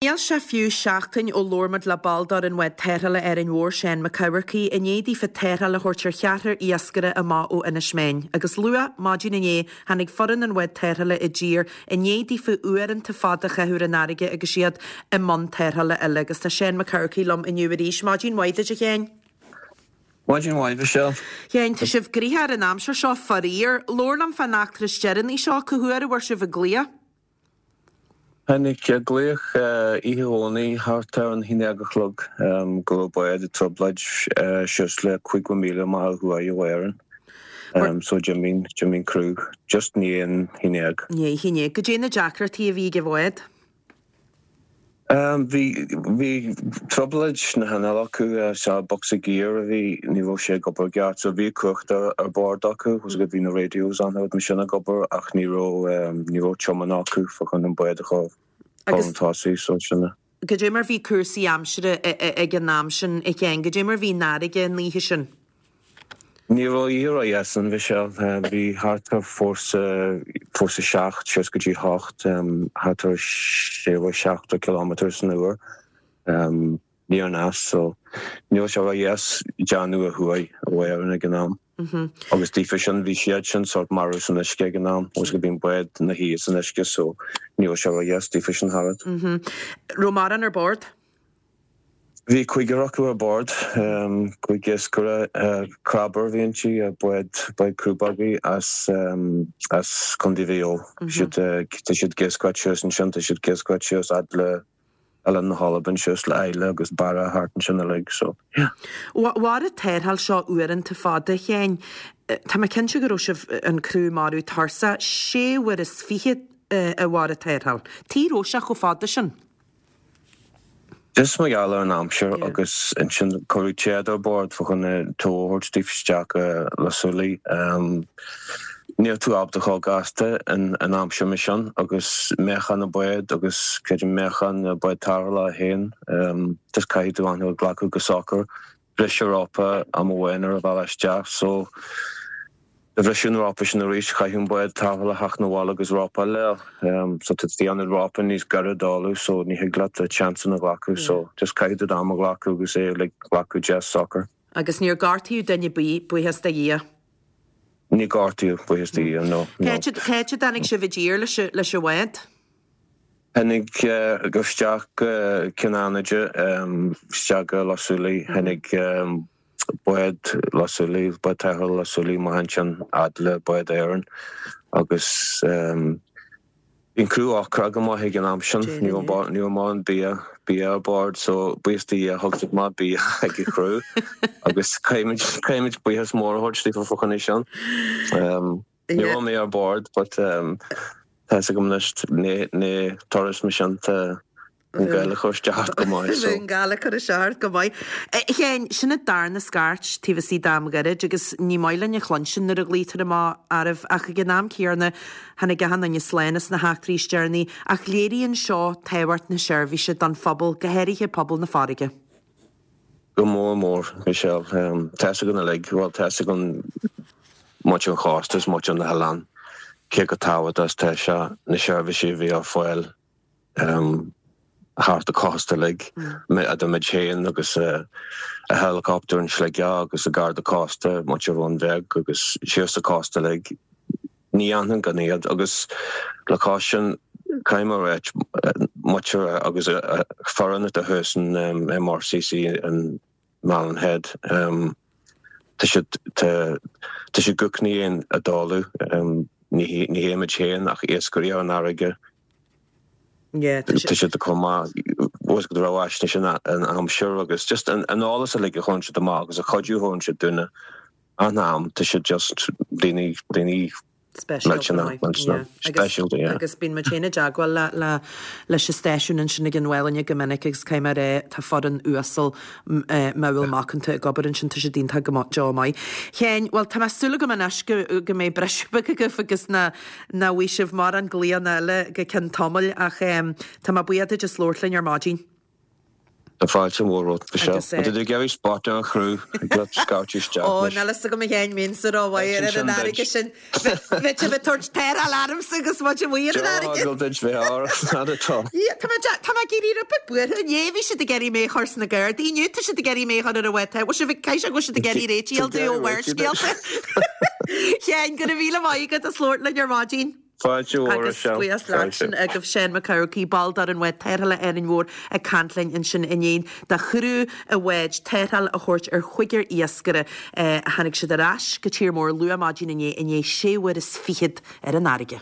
Níl sé fiú seachtain ó labhair muid le ball d'fhoireann bhád tarrthála Árainn Mhór, Seán Mac Eamharcaigh, i ndiaidh daofa tarrtháil a thabhairt ar cheathrar iascaire amach ó Inis Meáin. Agus luath maidin inné tháinig foireann an bhád tarrthála i dtír i ndiaidh daofa uaireanta fada a chaitheamh ar an fharraige agus iad i mbun tarrthála eile. Agus tá Seán Mac Eamharcaigh liom inniu arís. Maidin mhaith duit a Sheáin. Maidin mhaith, Michelle. Sheáin, tá sibh gnoitheach ar an aimsir seo, faraor. Labhair liom fán eachtra is deireanaí seo, cá huair a bhfuair sibh an glaoch? Tháinig glaoch oíche Dhomhnaigh thart ar an haon déag a chlog go raibh bád i dtrioblóid suas le 50 míle amach ó thuaidh ó Éirinn. So d'imigh, d'imigh an criú just i ndiaidh an haon déag. Ndiaidh a haon déag. Goidé na deacrachtaí a bhí ag an bhád? Bhí, bhí trioblóid sna hinnill acu, sea, bocsa giar a bhí, ní raibh sé ag obair i gceart, so bhí cumhacht ar, ar bord acu, was bhí na radios an rud mar sin ag obair ach ní raibh, ní raibh tiomáint acu fá choinne an bád a chur chun tosaigh, so sin é. Goidé mar bhí cúrsaí aimsire ag an am sin, a Sheáin, goidé mar bhí an fharraige an oíche sin? Ní raibh oíche ródheas ann, Michelle. Bhí thart ar fórsa, fórsa 7 suas go dtí 8, thart ar 60 kilometre san uair, aniar aneas, so ní raibh sé ródheas déanamh ó thuaidh ó Éirinn ag an am. Agus daofa sin, bhí siad sin sórt marbh san uisce ag an am, agus bhí an bád ina shuí san uisce, so ní raibh sé ródheas daofa sin thart. Raibh mórán ar bord? Bhí cúigear acu ar bord, cúig iascaire, crabber a bhí inti, bád, bád crúbógaí as, as Contae Mhaigh Eo. Siad, tá siad ag iascaireacht suas ansin, tá siad ag iascaireacht suas fhad le Oileán na hAlban, suas le Islay agus Barra thart ansin uilig, so yeah. Mhair an tarrtháil seo uaireanta fada, a Sheáin. Tá mé cinnte go raibh sibh, an criú marbh tuirseach, sé uair is fichead a mhair an tarrtháil. Tuige a raibh sé chomh fada sin? Just mar gheall ar an aimsir agus ansin cuireadh téad ar bord fá choinne tow a thabhairt daofa isteach go Loch Súilí. Níl tú ábalta chomh gasta in aimsir mar sin agus meáchan an bád agus creidim meáchan na bád tarrthála féin just caithfidh tú an rud a ghlacadh go socair. Briseadh rópa am amháin ar an bhealach isteach so do bhriseadh an rópa sin arís chaithfeadh an bád tarrthála theacht 'na bhaile agus rópa eile a fháil. So tá tú ag déanamh rópa níos gaire d'fhálú so ní thig leat chance a ghlacadh so just caithfidh tú d'am a ghlacadh agus é like glacadh deas socair. Agus níor gortaíodh duine ar bith, buíochas do Dhia. Níor gortaíodh, buíochas do Dhia, no, no. Cá háit a dtáinig sibh i dtír leis an bhád? Tháinig isteach go Cionn Fhánaide, isteach go Loch Súilí, tháinig bád Loch Súilí, bád tarrthála Loch Súilí amach ansin fhad le bád Éireann agus bhí an criú ocrach go maith ag an am sin, ní raibh ní raibh mórán bia, bia ar bord so buíochas do Dhia thug siad maith bia ag an chriú agus caithfimid, caithfimid buíochas mór a thabhairt daofa fá choinne sin. Ní raibh mé ar bord but tá fhios agam anois ní turas mar sin tá an gal ag cur isteach ort go maith so. An gal ag cur isteach ort go maith. A Sheáin, sin an darna scairt taobh istigh d'am gairid agus ní maith linn a chluinstin nuair a ghlaoitear amach oraibh ach ag an am céanna tháinig achan duine slán as na heachtraí is deireanaí ach léiríonn seo tábhacht na seirbhíse don phobal, go háirithe pobal na farraige. Go mór mór, Michelle. Tá fhios againn uilig, bhuel, tá fhios againn muintir an chósta is muintir na hoileán, cé chomh tábhachtach is tá sé na seirbhísí a bhí ar fáil thart an cósta uilig, idir muid féin agus an helicopter in Sligeach agus an Garda Cósta, muintir Bhun Bheag agus síos an cósta uilig. Ní dhéanfainn gan iad agus le cois sin caithfidh mé a ráit muintir agus foireann atá thuas in MRCC in Malin Head tá siad tá tá siad go cnaíonn a dáileadh ní ní hé muid féin ach iascairí ar an fharraige tá siad chomh maith go raibh fhaisnéis an aimsir agus just an eolas uilig a chuireann siad amach agus an cuidiú a thugann siad dúinne. An am, tá siad just daoine, daoine Speisialta, yeah. Speisialta, yeah. Agus bíonn muid féin i dteagmháil le, le, leis an stáisiún ansin ag an Mhálainne go minic agus caithfidh mé a rá, tá foireann uasal modhúil macánta ag obair ansin, tá siad iontach go deo maith. Sheáin, bhuel tá mé súil agam anois go, go mbeidh briseadh beag agaibh agus nach, nach bhfaighidh sibh mórán glaonna eile go ceann tamaill ach tá mé buíoch duit as labhairt linn ar maidin. Tá fáilte mhór romhat, Michelle. Agus, Má tá tú ag iarraidh spota ar chriú, ag leat scairteadh isteach Ó, anois. níl fhios agam a Sheáin, mbeinnse rómhaith ar an fharraige sin. Bheadh sibh ag tabhairt tarrtháil ormsa agus muid amuigh ar an fharraige. Deá-eagal duit bheith ár fhad atá. Tá mé tá mé ag éirí rud beag buartha. Inné bhí siad ag iarraidh mé a chur sna Gardaí, inniu tá siad ag iarraidh mé a chur ar an bhád. Bhfuil sibh ag, caithfidh sé go bhfuil siad ag iarraidh réitigh a fháil domh ó Bharrscéalta. Sheáin, go raibh míle maith agat as labhairt linn ar maidin. Fáilte mhór, Agus Michelle. buíochas leat Fáilte. sin agaibh Seán Mac Eamharcaigh, ball d'fhoireann bhád tarrthála Árainn Mhór ag caint linn ansin i ndiaidh do chriú an bháid tarrtháil a thabhairt ar chúigear iascaire a tháinig siad ar ais go tír mór luath maidin inné i ndiaidh sé uair is fichead ar an fharraige.